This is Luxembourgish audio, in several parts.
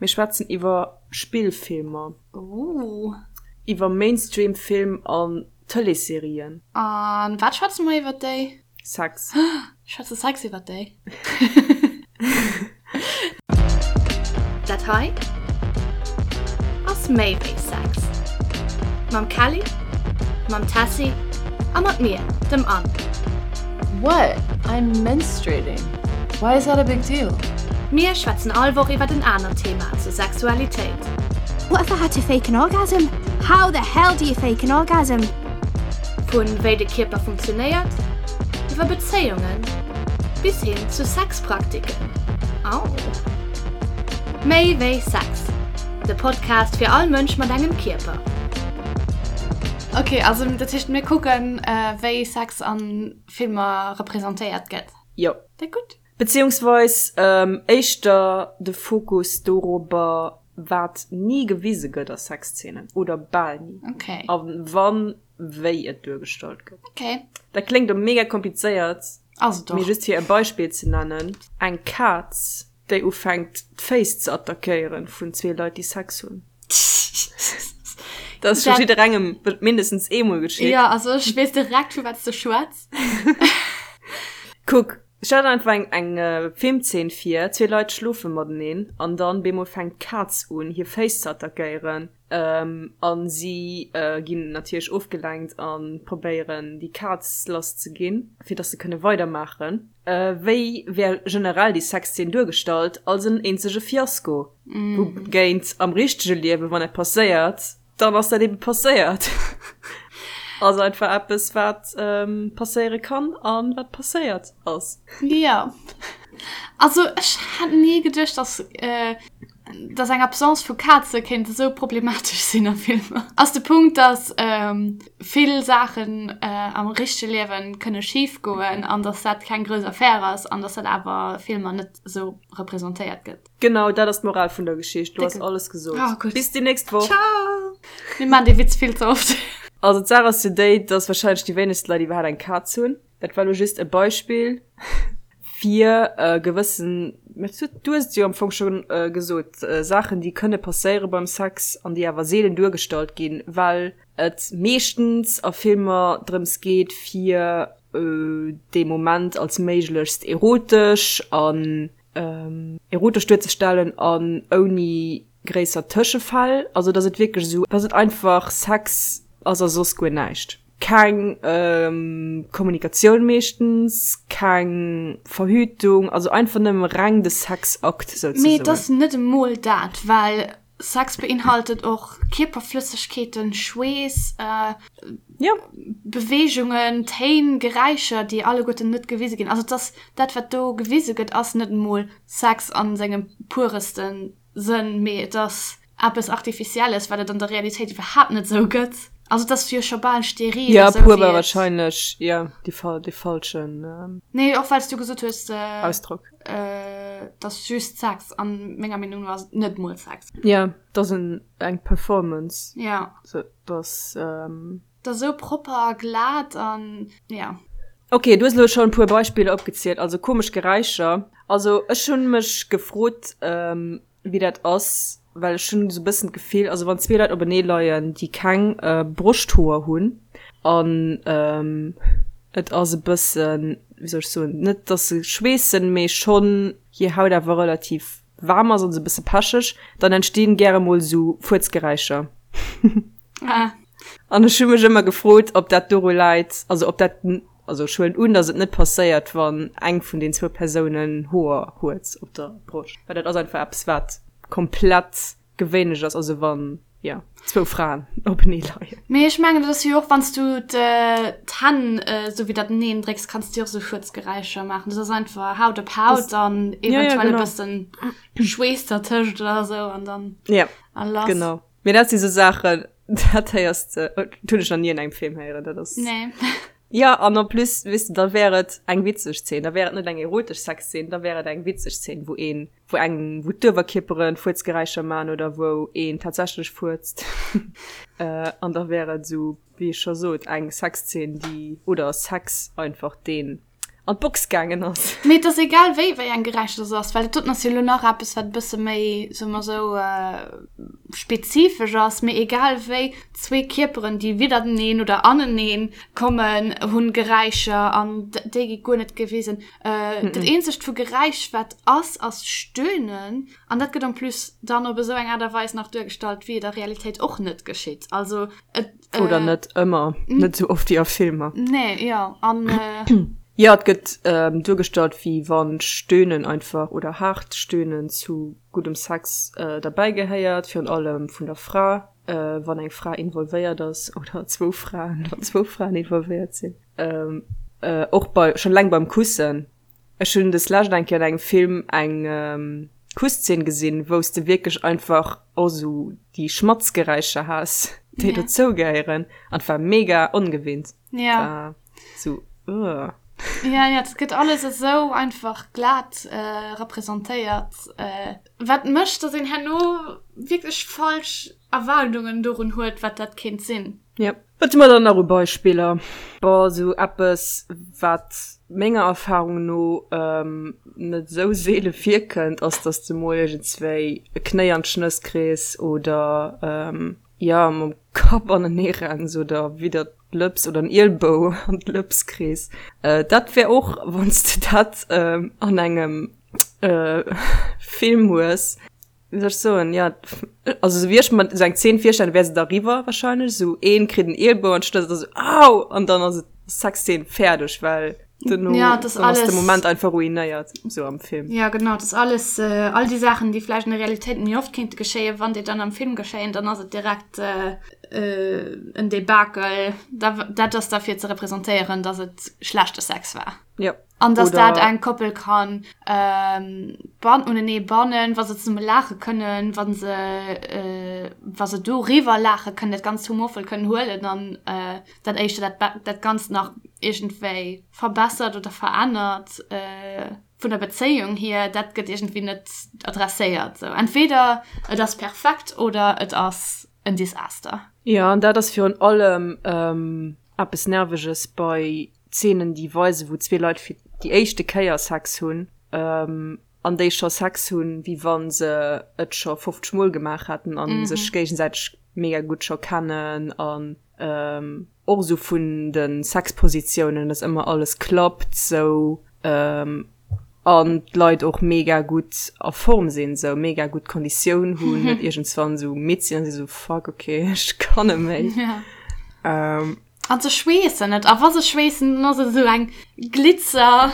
Mir schwätzen iwwer Spillfilmer. Ooh. Iwwer Mainstream-Film an Tëleesserien. A wat schwätze mer iwwer déi? Sex. Schwätze Sex iwwer déi? Dat hei ass méi wéi Sex. Mam Kelly, mam Tessy a mat mir, dem Anne. What? I'm menstruating. Why is that a big deal? Mir schwätzen all Woch iwwert en anert Thema zur Sexualitéit. What if I had to fake an orgasm? How the hell do you fake an orgasm? Vu wéi de Kierper funktionéiert, iwwer Bezéiungen bis hin zu Sexpraktiken. Au! Méi wéi Sex, de Podcast fir all Mënsch mat engem Kierper. Ok, also dat heescht mir kucken wéi Sex an Filmer representéiert gëtt. Jo. Dat gutt. Beziehungsweis éischter de Fokus dorobber wat ni gewise gëtt a Sexzeenen oder bal ni. Ok. A wann, wéi et duergestallt gëtt. Ok. Dat kléngt elo mega komplizéiert. Ass et och. Mee just fir e Beispill ze nennen, eng Kaz déi ufänkt d'Féiss ze attackéieren vun zwee Leit déi Sex hunn. Dat ass scho jidderengem mindestens eemol geschitt. Jo, also ech weess direkt vu wat s de schwätz. Kuck, stell der einfach eng eng Filmzeen vir, zwee Leit schlofe mateneen an dann bemol fänkt d'Kaz un hir Féiss ze attackéieren an si ginn natierlech ofgelenkt an probéieren déi Kaz lass ze ginn fir dass se kënne weidermaachen. Wéi wär generell déi Sexzeen duergestallt? Als en eenzege Fiasko. Wougéint am richtege Liewen, wann dat passéiert, dann ass dat ebe passéiert. Ass einfach eppes, wat passéiere kann a wat passéiert ass. Jo. Also ech hätt ni geduecht, dass dass eng Absence vu Kaze kéint esou problematesch sinn a Filmer. Ass de Punkt, dass vill Saachen am richtege Liewen kënne schif goen an dass dat keng grouss Affär ass an dass dat awer Filmer net esou representéiert gëtt. Genau, dat ass d'Moral vun der Geschicht. Du has alles gesot. Oh, gutt. Bis déi nächst Woch. Ciao! Mir maachen dee Witz vill ze oft. Also d'Saach ass jo déi, dass wahrscheinlech déi wéinegst Leit iwwerhaapt eng Kaz hunn. Dat war lo just e Beispill fir gewëssen, mä du hues et jo am Fong scho gesot, Saachen, déi kënne passéiere beim Sex an déi awer seelen duergestallt ginn, well et meeschtens a Filmer drëms geet, fir dee Moment als méiglechst erotesch an erotesch duerzestellen an ouni gréisser Tëschefäll, also dass et wierklech esou, dass et einfach Sex ass a soss guer näischt. Keng Kommunikatioun meeschtens, keng Verhütung, also einfach nëmme reng de Sexakt souzesoen. Mee et ass net emol dat, well Sex beinhaltet och Kierperflëssegkeeten, Schweess, Beweegungen, Téin, Geräischer, déi alleguerten net gewise ginn. Also et ass dat wat do gewise gëtt, ass net emol Sex a sengem puresten Sënn, mee et ass eppes Artificielles, wat et an der Realitéit iwwerhaapt net esou gëtt. Also et ass jo scho bal steril. Jo, pur war wahrscheinlech, jo, dee falschen. Nee, och well s du gesot hues. Ausdrock. Et ass just Sex. An menger Meenung no ass et net mol Sex. Jo, et ass eng Performance. Jo. Et ass. Et ass esou propper a glat an, jo. Ok, du hues elo schonn e puer Beispiller opgezielt, also komesch Geräischer. Also ech hunn mech gefrot wéi dat ass, well ech hunn esou e bëssen d'Gefill, also wann zwee Leit openee leien, déi keng Broschthoer hunn an et ass e bëssen, wéi soll ech soen, net dass se schweessen, mee schonn hir Haut awer relativ waarm ass an esou e bësse pecheg, dann entstinn gäre mol esou Fuerzgeräischer. Ah. An ech hu mech ëmmer gefrot, ob dat doru läit, also ob dat, also ech huelen un, datt et net passéiert, wann eng vun den zwou Persounen Hoer huet op der Broscht, well dat ass einfach eppes, wat komplett gewéinlech ass, also wann, jo, zwou Fraen openee leien. Mee ech mengen, dat ass jo och, wann s du d'Hänn esou widderteneen drécks, kanns du jo och esou Fuerzgeräischer maachen. Dat ass einfach Haut op Haut an eventuell e bëssen Schweess dertëscht oder esou an dann a lass. Genau. Mee dat si sou Saachen, dat héiers de, dat hunn ech nach ni an engem Film héieren, dat ass. Nee. Jo, an en plus, weess de, da wär et eng witzeg Zeen, da wär et net eng erotesch Sexzeen, da wär et eng witzeg Zeen, wou een, wou eng, wou d'Uewerkierpere Fuerzgeräischer man oder wou een tatsächlech fuerzt. An da wär et esou, wéi ech scho sot, eng Sexzeen, déi, oder Sex einfach, deen. an d'Box gaangen ass. Mee et ass egal wéi wéi eng Geräischer dat ass, well dat doten ass jo elo nach eppes wat e bësse méi, soe mer esou, spezifesch ass, mee egal wéi, zwee Kierperen déi widderteneen oder aneneen kommen hunn Geräischer an déi gi guer net gewisen. Dat eenzegt vu Geräisch wat ass, ass Stöhnen an dat gëtt en plus dann op esou eng Aart a Weis nach duergestallt wéi et a Realitéit och net geschitt. Also et. Oder net ëmmer, net esou oft wéi a Filmer. Nee, jo, an. Jo, et gëtt duergestallt, wéi wann Stöhnen einfach oder haart Stöhnen zu guddem Sex derbäi gehéiert, virun allem vun der Fra, wann eng Fra involvéiert ass, oder zwou Fraen, wann zwou Fraen involvéiert sinn. Och bei, schonn eleng beim Kussen. Ech hunn des lescht eng Kéier an engem Film eng Kusszeen gesinn, wou s de wierklech einfach och sou déi Schmatzgeräischer has, déi dozou gehéieren, an et war mega ongewinnt. Ja. War sou, ugh. Ja, ja, et gëtt alles esou einfach glat representéiert, wat mécht, dass een herno wierklech falsch Erwaardungen dorun huet, wat dat kéint sinn. Yep. Wat hu mer dann nach u Beispiller? Bon, esou eppes, wat menger Erfahrung no net esou seele virkënnt, ass, dass de mol iergendswéi e Knéi an d'Schnëss kriss oder, jo, mam Kapp anenee renns oder widder d'Lëps oder en Ielbou an d'Lëps kriss. Dat wär och, wann s de dat an engem Film hues, Wéi soll ech soen, ja, also sou wéi ech mer sou eng Zeen virstellen, wär se da riwwer wahrscheinlech, sou een kritt en Ielbou an d'Schnëss, da sou au! An dann ass et Sexzeen fäerdeg, well duerno Ja, das dann ass de alles- Moment einfach ruinéiert, sou am Film. Ja, genau, das alles, äh, all déi Saachen, déi vläicht an der Realitéit méi oft kéinte geschéien, wann déi dann am Film geschéien, dann ass et direkt äh, äh, en Debakel. Da, dat ass da fir ze representéieren, dass et schlechte Sex war. Ja. An dass Oder- dat eng Koppel kann ähm, ban unenee bannen, wa se zesumme laache kënnen, wa se, äh, wa se doriwwer laache kënnen, dat Ganzt humorvoll kënnen huelen an äh, dat éischter dat, Be- dat Ganzt nach iergendwéi verbessert oder verännert äh, vun der Bezéiung hier, dat gëtt iergendwéi net adresséiert. Sou, entweder et ass perfekt oder et ass en Desaster. Jo, an dat ass virun allem ähm, eppes Nerveges bei Zeenen, déi weisen, wou zwee Leit fir déi éischte Kéier Sex hunn an déi scho Sex hunn, wéi wa se et scho 50 Mol gemaach hätten a sech géigesäiteg mega gutt scho kennen an och esou vun de Sexpositiounen, dass ëmmer alles klappt sou an d'Leit och mega gutt a Form sinn, sou mega gutt Konditioun hunn, net iergendswann sou midd sinn a si sou fuck okay, ech kann net méi. An se schweessen net. A wa se schweessen, dann ass et esou eng Glitzer.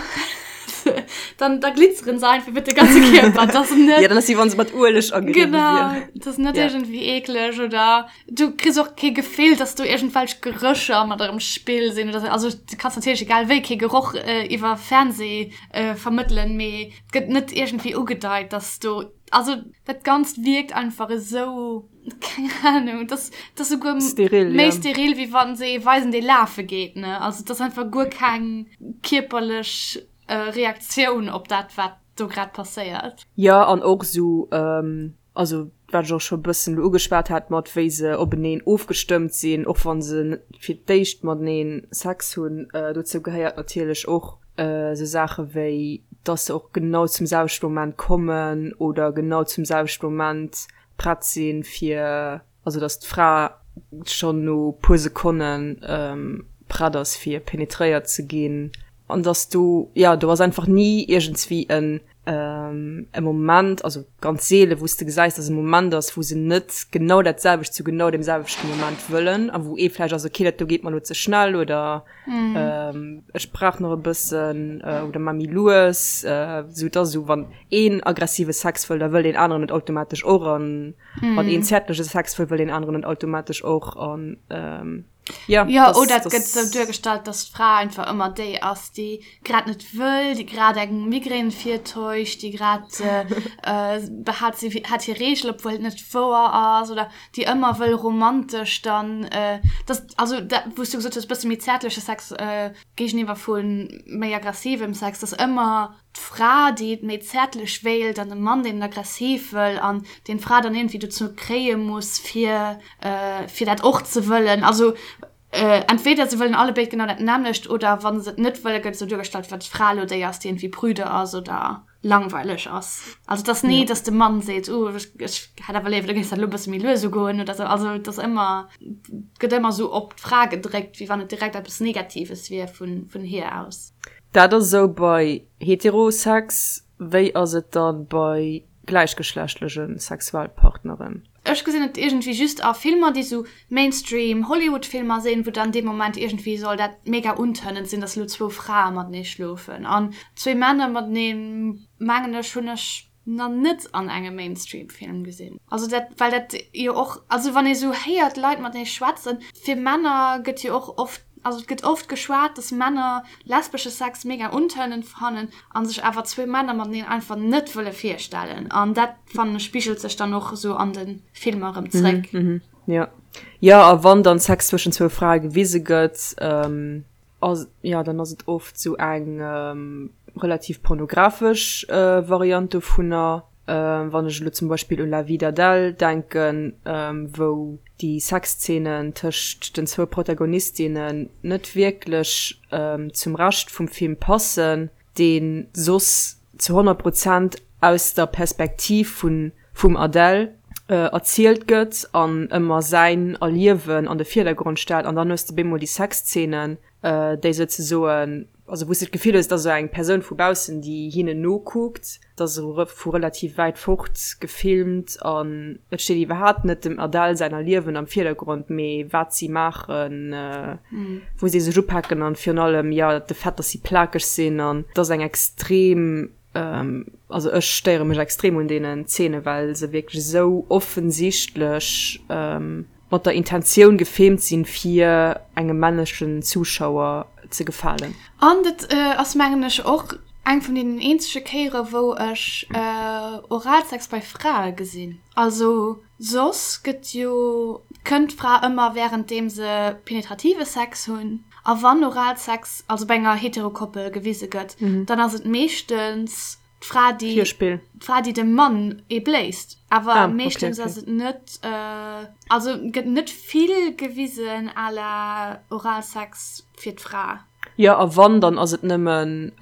Dann, da glitzeren se einfach iwwer de ganze Kierper. Das ass net. Ja, dann ass wéi wann se mat Ueleg ageriwwe Genau. wieren. Das ass net Ja. iergendwéi eekleg oder du kriss och kee Gefill, dass do iergendwelch Gerécher mat am Spill sinn oder sou. Also du kanns natierlech egal wéi kee Geroch iwwer Fernseh vermëttelen, mee et gëtt net iergendwéi ugedeit, dass do, also dat Ganzt wierkt einfach esou. Keng Ahnung, das, das souguer steril, méi ja. steril, wéi wann se ee weisen, dee lafe geet, ne? Also, das einfach guer keng kierperlech äh, Reaktioun op dat, wat do grad passéiert. Ja, an och sou, ähm, also wat ech och scho bëssen elo ugeschwat hat, mat wéi se openeen ofgestëmmt sinn, och wann se fir d'éischt matenee Sex hunn. Äh, dozou gehéiert natierlech och äh, sou Saache wéi, dass se och genau zum selwechte Moment kommen oder genau zum selwechte Moment prett sinn fir, also dass d'Fra schonn no puer Sekonne prett ass fir penetréiert ze ginn an dass do, jo do ass einfach ni iergendswéi en e Moment, also ganz seele wou s de gesäis, dass e Moment ass wou se net genau dat selwecht zu genau deem selwechten Moment wëllen a wou ee vläicht ass, okay dat do geet mer elo ze schnell oder Ech brauch nach e bëssen oder mar méi lues, sou et ass esou wann een aggressive Sex wëll, da wëll deen aneren et automatesch och an wann een zäertleche Sex wëll, wëll deen aneren et automatesch och an jo. Jo, oder et gëtt esou duergestallt, dass d'Fra einfach ëmmer déi ass, déi grad net wëll, déi grad eng Migrän virtäuscht, déi grad behaapt, si hätt hir Reegel, obwuel et net wouer ass oder déi ëmmer wëll romantesch dann, dass Also dat wou s du gesot hues, bësse méi zäertleche Sex géigeniwwer vu méi aggressivem Sex, dass ëmmer d'Fra déi et méi zäertlech wéilt an de Mann deen et aggressiv wëll an deen d'Fra dann iergendwéi dozou kréie muss fir fir dat och ze wëllen. Also. Entweder se wëllen allebéid genau dat nämmlecht oder wa se et net wëllen, gëtt esou duergestallt, wéi wann d'Fra elo déi ass, déi iergendwéi prüde ass oder langweileg ass. Also et ass ni, dass de Mann seet, oh ech hätt awer léiwer, du géings dat elo e bësse méi lues ugoen oder esou. Also et ass ëmmer, et gëtt ëmmer esou op d'Fra gedréckt, wéi wann et direkt eppes Negatives wier vun hir aus. Dat ass esou bei Heterosex. Wéi ass et da bei gläichgeschlechtleche Sexualpartneren? Ech gesinn et iergendwéi just a Filmer, déi sou Mainstream Hollywood Filmer sinn, wou dann dee Moment iergendwéi soll dat mega untönend sinn, dass elo zwou Frae matenee schlofen. An zwee Männer mateneen, mengen ech, hunn ech na net an engem Mainstream Film gesinn. Also dat, well dat jo och, also wann ee sou héiert Leit matenee schwätzen, fir Männer gëtt jo och oft, also et gëtt oft geschwat, dass Männer lesbesche Sex mega untönend fannen a sech awer zwee Männer mateneen einfach net wëlle virstellen. An dat fannen ech spigelt sech dann och esou an de Filmer erëm zréck. Mm -hmm, ja. Ja, a wann dann Sex zwëschen zwou Frae gewise gëtt, ähm, ass, ja, dann ass et oft sou eng ähm, relativ pornografesch äh, Variant dovunner. Ähm, wann ech elo zum Beispill un La vie d'Adèle denken, ähm, wou déi Sexzeenen tëscht den zwou Protagonistinnen net wierklech ähm, zum Rescht vum Film passen, dee soss zu 100 Prozent aus der Perspektiv vun vum Adèle erzielt gëtt an ëmmer säin Erliewen an de Virdergrond stellt an dann hues de bemol déi Sexzeenen, déi souzesoen, also wou s de d'Gefill hues, et ass esou eng Persoun vu baussen, déi hinnen nokuckt, et ass esou vu relativ wäit fort gefilmt an et steet iwwerhaapt net dem Adèle säin Erliewen am Virdergrond, mee wat si maachen, wou si sech upaken an virun allem, jo, de Fait, dass si plakeg sinn an et ass eng extrem, also ech stéiere mech extrem un deenen Zeene, well se wierklech esou offensichtlech mat der Intentioun gefilmt sinn, fir engem männlechen Zuschauer ze gefalen. An dat ass mengen ech och eng vun deenen eenzege Kéiere wou ech Oralsex bei Frae gesinn. Also soss gëtt jo, kënnt d'Fra ëmmer wärenddeem se penetrative Sex hunn. A wann Oralsex, also bei enger Heterokoppel gewise gëtt, dann ass et meeschtens d'Fra, déi, Virspill. d'Fra, déi dem Mann ee bléist. Awer Ah, okay, meeschtens okay. ass et net, also gëtt net vill gewisen à la Oralsex fir d'Fra. Jo, a wann, dann ass et nëmmen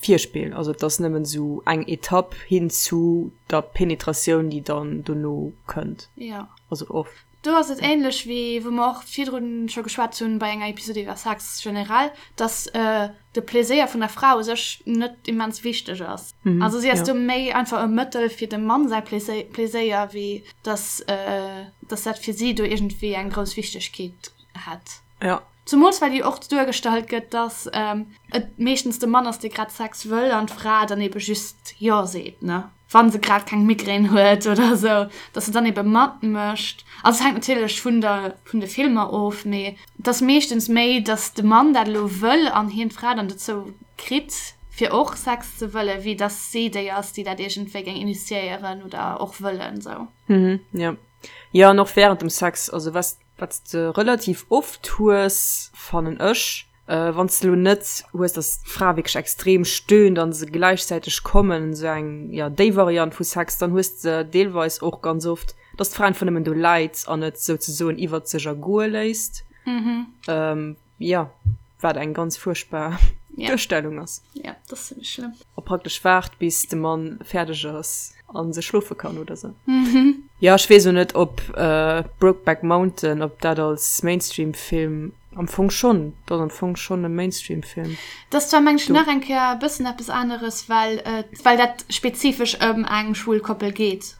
Virspill, also et ass nëmmen esou eng Etapp hin zu der Penetratioun, déi dann dono kënnt. Jo. Also oft. Do ass et ähnlech wéi wou mer och virdrun scho geschwat hunn bei enger Episode iwwer Sex generell, dass de Pleséier vun der Fra u sech net immens wichteg ass. Also si ass do méi einfach e Mëttel fir dem Mann säi Pleséier, wéi dass dass dat fir si do iergendwéi eng grouss Wichtegkeet hätt. Ja. Zumools well jo och duergestallt gëtt, dass et meeschtens de Mann ass, dee grad Sex wëll an d'Fra dann ebe just Jo seet, ne? Wa se grad keng Migrän huet oder esou, dass se dann ebe matmécht. Also et hänkt natierlech vun der, vun de Filmer of, mee et ass meeschtens méi, dass de Mann dat elo wëll an hien d'Fra dann dozou kritt, fir och Sex ze wëllen, wéi dass si déi ass, déi dat iergendwéi géing initiéieren oder och wëllen, esou. Mhm, jo. Jo, an och wärend dem Sex, also was Wat s de relativ oft hues, fannen ech, wann s de lo net hues, dass d'Fra wierklech extrem stöhnt an se gläichzäiteg kommen, esou eng, jo, déi Variant vu Sex, dann hues de deelweis och ganz oft, dass d'Fra einfach nëmmen do läit an et souzesoen iwwert sech ergoe léisst. Jo, wat eng ganz fuerchtbar Duerstellung ass. Ja, dat ass zimmlech schlëmm. A praktesch waart, bis de Mann fäerdeg ass a se schlofe kann oder sou. Jo, ech weess o net, ob Brokeback Mountain, ob dat als Mainstream-Film, am Fong schonn, dat ass am Fong schonn e Mainstream-Film. Dat ass zwar, meng ech, nach eng Kéier e bëssen eppes aneres, well et, well dat spezifesch ëm eng schwul Koppel geet.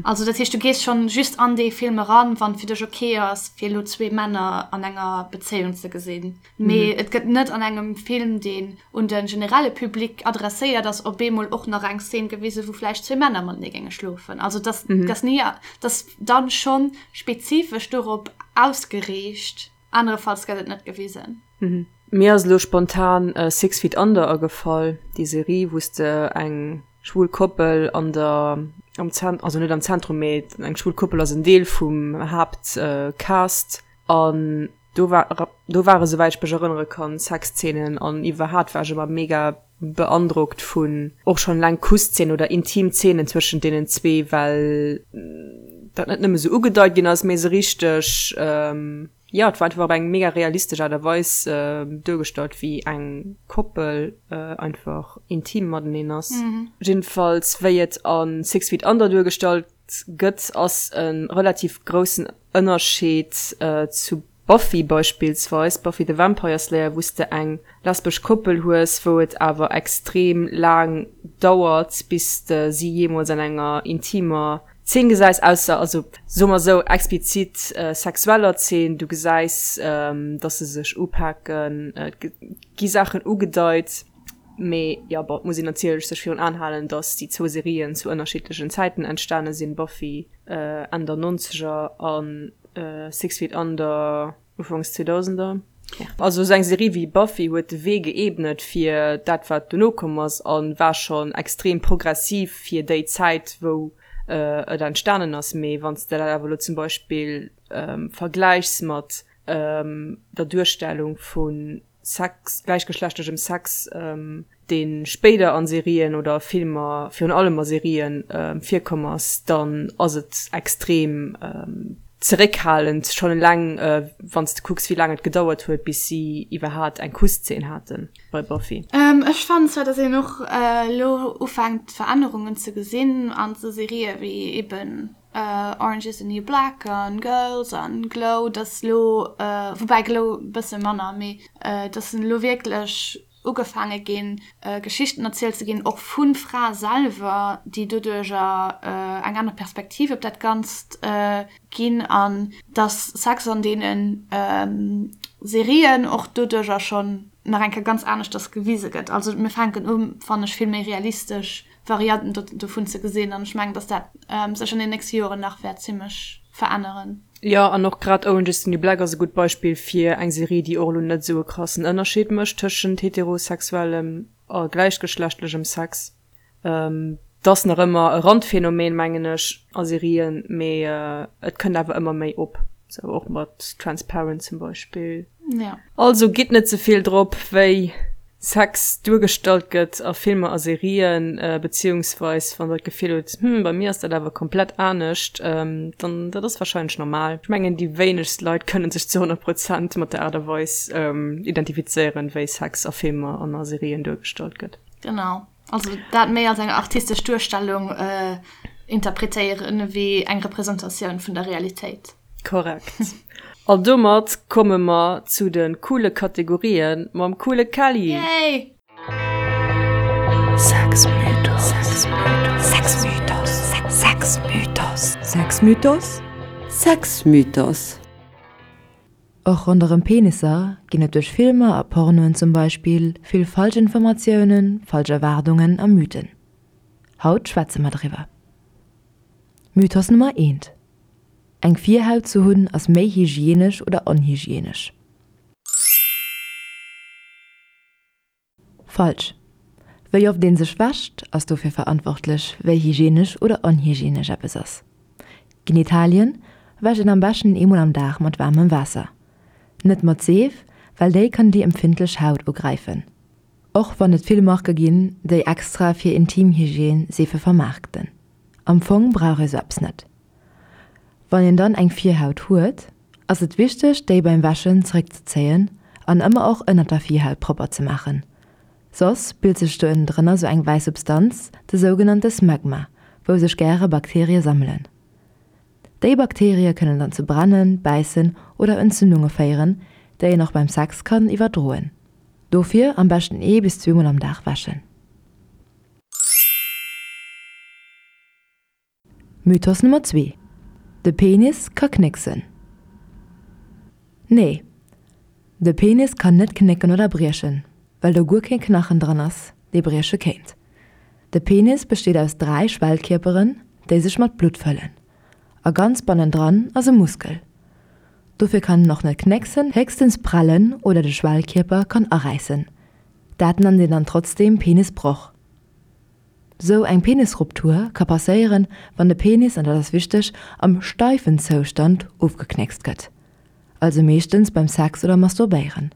Also dat heescht, du gees schonn just an dee Film eran, wann et fir dech ok ass, fir elo zwee Männer an enger Bezéiung ze gesinn. Mee et gëtt net an engem Film, deen un de generelle Public adresséiert ass, op eemol och nach eng Szene gewisen, wou vläicht zwee Männer matenee géinge schlofen. Also dass dass ni dass dann schonn spezifesch dorop ausgeriicht. Anerefalls gëtt et net gewisen. Mir ass elo spontan Six Feet Under agefall, déi Serie, wou s de eng schwul Koppel an der, am Zent, also net am Zentrum, mee eng schwul Koppel ass en Deel vum Haaptcast an do war, do ware souwäit ech mech erënnere kann Sexzeenen an iwwerhat war ech ëmmer mega beandrockt vun och schonn eleng Kusszenen oder intim Zeenen zwëschent deenen zwee, well dat net nëmme sou ugedeit ginn ass, mee se richteg. Jo, et war einfach op eng mega realistesch Aart a Weis duergestallt, wéi eng Koppel einfach intim mateneen ass. Jiddefalls wéi et a Six Feet Under duergestallt gëtt, ass e relativ groussen Ënnerscheed zu Buffy beispillsweis, Buffy the Vampire Slayer, wou s de eng lesbesch Koppel hues, wou et awer extrem laang dauert, bis de si jeemools an enger intimer Zeen gesäis, ausser, also soe mer esou, explizit sexueller Zeen. Du gesäis, dass se sech upaken, et gi Saachen ugedeit, mee jo, bon, et muss een natierlech sech virun Aen halen, dass déi zwou Serien zu ënnerschiddlechen Zäiten entstane sinn, Buffy Enn der Nonzeger an Six Feet Under Ufanks Zweedausender. Also esou eng Serie wéi Buffy huet de Wee geebnet fir dat wat dono komm ass a war schonn extrem progressiv fir déi Zäit wou et entstanen ass. Mee wann s de dat awer elo zum Beispill vergläichs mat der Duerstellung vu Sex, gläichgeschlechtlechem Sex, dee spéider a Serien oder a Filmer, virun allem a Serien, virkomm ass, dann ass et extrem zeréckhalend, schonn eleng wann s de kucks, wéi laang et gedauert huet, bis si iwwerhaat eng Kusszeen hate bei Buffy. Ech fannen zwar, datt een och elo ufänkt Verännerungen ze gesinn an esou Serië wéi eben Orange is the New Black an Girls an Glow, dass lo, woubäi Glow e bësse manner, mee dass elo wierklech ugefaange ginn, Geschichten erzielt ze ginn, och vu Frae selwer, déi doduercher eng aner Perspektiv op dat Ganzt ginn an dass Sex an deene Serien och doduercher schonn nach eng Kéier ganz aneschters gewise gëtt. Also mir fänken u, fannen ech, vill méi realistesch Varianten dovun ze gesinn an ech mengen, dass dat sech an den nächste Joren nach wäert zimmlech veränneren. Jo, an och grad Orange is the New Black ass e gutt Beispill fir eng Serie, déi och elo net esou e krassen Ënnerscheed mécht tëschent heterosexuellem a gläichgeschlechtlechem Sex. Et ass nach ëmmer e Randphänomen, mengen ech, a Serien, mee et kënnt awer ëmmer méi op, sou och mat Transparent zum Beispill. Also gitt net ze vill drop, wéi Sex duergestallt gëtt a Filmer a Serien, beziehungsweis wann der d'Gefill hutt, hm, bei mir ass dat awer komplett anescht, dann dat ass wahrscheinlech normal. Ech mengen déi wéinegst Leit kënnen sech zu 100 Prozent mat der Aart a Weis identifizéieren, wéi Sex a Filmer an a Serien duergestallt gëtt. Genau, also dat méi als eng artistesch Duerstellung interpretéieren ewéi eng Representatioun vun der Realitéit. Korrekt. An domat komme mer zu de coole Kategorien mam coole Kelly. Yay! Sexmythos Sexmythos Sexmythos Sexmythos Sexmythos Och ronderëm Penisser ginn et duerch Filmer a Pornoen zum Beispill vill Falschinformatiounen, falsch Erwaardungen a Mythen. Haut schwätze mer driwwer. Mythos Nummer eent, Eng Virhaut ze hunn ass méi hygienesch oder onhygienesch? Falsch. Wéi oft een sech wäscht ass dofir verantwortlech wéi hygienesch oder onhygienesch eppes ass. Genitalien wäscht een am beschten eemol am Dag mat waarmem Waasser. Net mat Seef, well déi kann déi empfindlech Haut ugräifen. Och wann et vill Marke ginn, déi extra fir Intimhygiène Seefe vermaarkten. Am Fong brauch ee sou eppes net. Wann een dann eng Virhaut huet, ass et wichteg déi beim Wäschen zeréckzezéien an ëmmer och ënnert der Virhaut propper ze maachen. Soss bilt sech do ënnendrënner sou eng wäiss Substanz, de sougenannte Smegma, wou sech gäre Bakterie sammelen. Déi Bakterie kënnen dann zu Brennen, Bäissen oder Entzündunge féieren, déi een och beim Sex kann iwwerdroen. Dofir am beschten ee bis zweemol am Dag wäschen. Mythos Nummer 2, De Penis ka knécksen. Nee, de Penis kann net knécken oder briechen, well do guer kee Knachen dran ass, dee brieche kéint. De Penis besteet aus 3 Schwellkierperen, déi sech mat Blutt fëllen. A ganz bannendran ass e Muskel. Dofir kann en och net knécksen, héchstens prellen oder de Schwellkierper kann aräissen. Dat nennt een dann trotzdeem Penisbroch. Sou eng Penisruptur ka passéieren, wann de Penis, an dat ass wichteg, am steifen Zoustand ofgeknéckst gëtt, also meeschtens beim Sex oder Masturbéieren.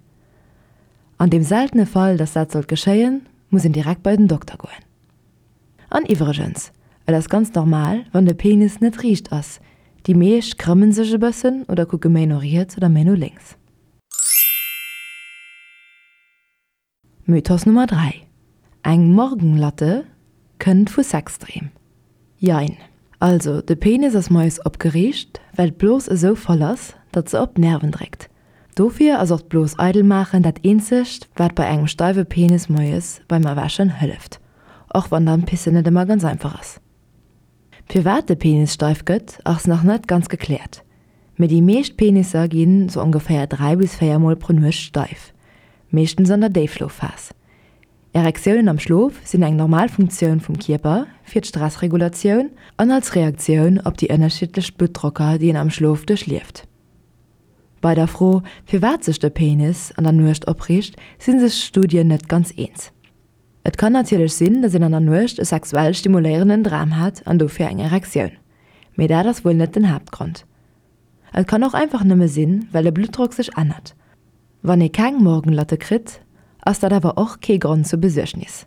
An deem seltene Fall, dass dat sollt geschéien, muss een direkt bei den Dokter goen. An iwwregens, et ass ganz normal, wann de Penis net riicht ass. Déi meescht krëmmen sech e bëssen oder kucke méi no riets oder méi no lénks. Mythos Nummer 3, Eng Morgenlatte kënnt vu Sexdreem. Jein. Also, de Penis ass moies opgeriicht, well d'Blos esou voll ass, datt se op d'Nerven dréckt. Dofir ass och d'Blos eidel maachen dat eenzegt, wat bei engem steiwe Penis moies beim Erwächen hëlleft, och wann dann d'Pissen net ëmmer ganz einfach ass. Firwat de Penis steif gëtt, ass nach net ganz gekläert, mee déi meescht Penisser ginn sou ongeféier 3 bis 4 mol pro Nuecht steif, meeschtens an der Déifschlofphas. Erektiounen am Schlof sinn eng normal Funktioun vum Kierper fir d'Stressregulatioun an als Reaktioun op déi ënnerschiddlech Bluttdrocker, déi een am Schlof duerchlieft. Bei der Fro, firwat sech de Penis an der Nuecht opriicht, si sech d'Studien net ganz eens. Et kann natierlech sinn, dass een an der Nuecht e sexuell stimuléierenden Dram hat an dofir eng Erektioun. Mee dat ass wuel net den Haaptgrond. Et kann och einfach nëmme sinn, well de Bluttdrock sech ännert. Wann ee keng Morgenlatte kritt, ass dat awer och kee Grond zur Besuergnis.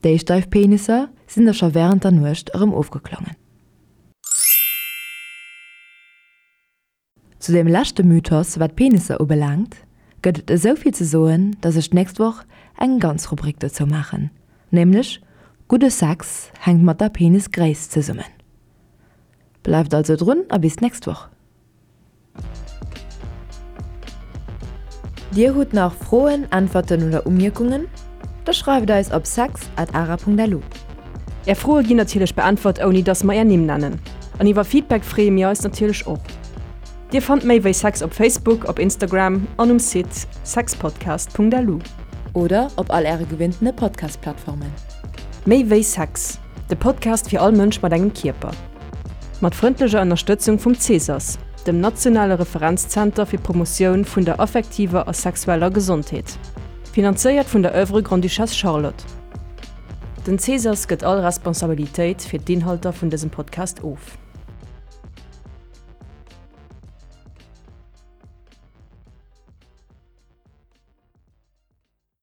Déi steif Penisser sinn da scho wärend der Nuecht erëm ofgeklongen. Zu deem leschte Mythos, wat Penisser ubelaangt, gëtt et esou vill ze soen, dass ech d'nächst Woch eng ganz Rubrik dozou maachen, nämlech Gudde Sex hänkt mat der Penisgréisst zesummen. Bleift also drun a bis d'nächst Woch! Dir hutt nach Froen, Äntwerten oder Umierkungen? Da schreift eis op sex at ara.lu. Är Froe ginn natierlech beäntwert ouni dass mer är Nimm nennen. An iwwer Feedback freeë mir eis natierlech och. Dir fannt méi wéi Sex op Facebook, op Instagram an um Site sexpodcast.lu. Oder op all äre gewinntene Podcast-Plattformen. Méi wéi Sex, de Podcast fir all Mënsch mat engem Kierper. Mat frëndlecher Ënnerstëtzung vum CESAS, dem nationale Referenzzenter fir d'Promotioun vun der affektiver a sexueller Gesondheet. Finanzéiert vun der Oeuvre Grande-Duchesse Charlotte. Den CESAS gëtt all Responsabilitéit fir d'Inhalter vun dësem Podcast of.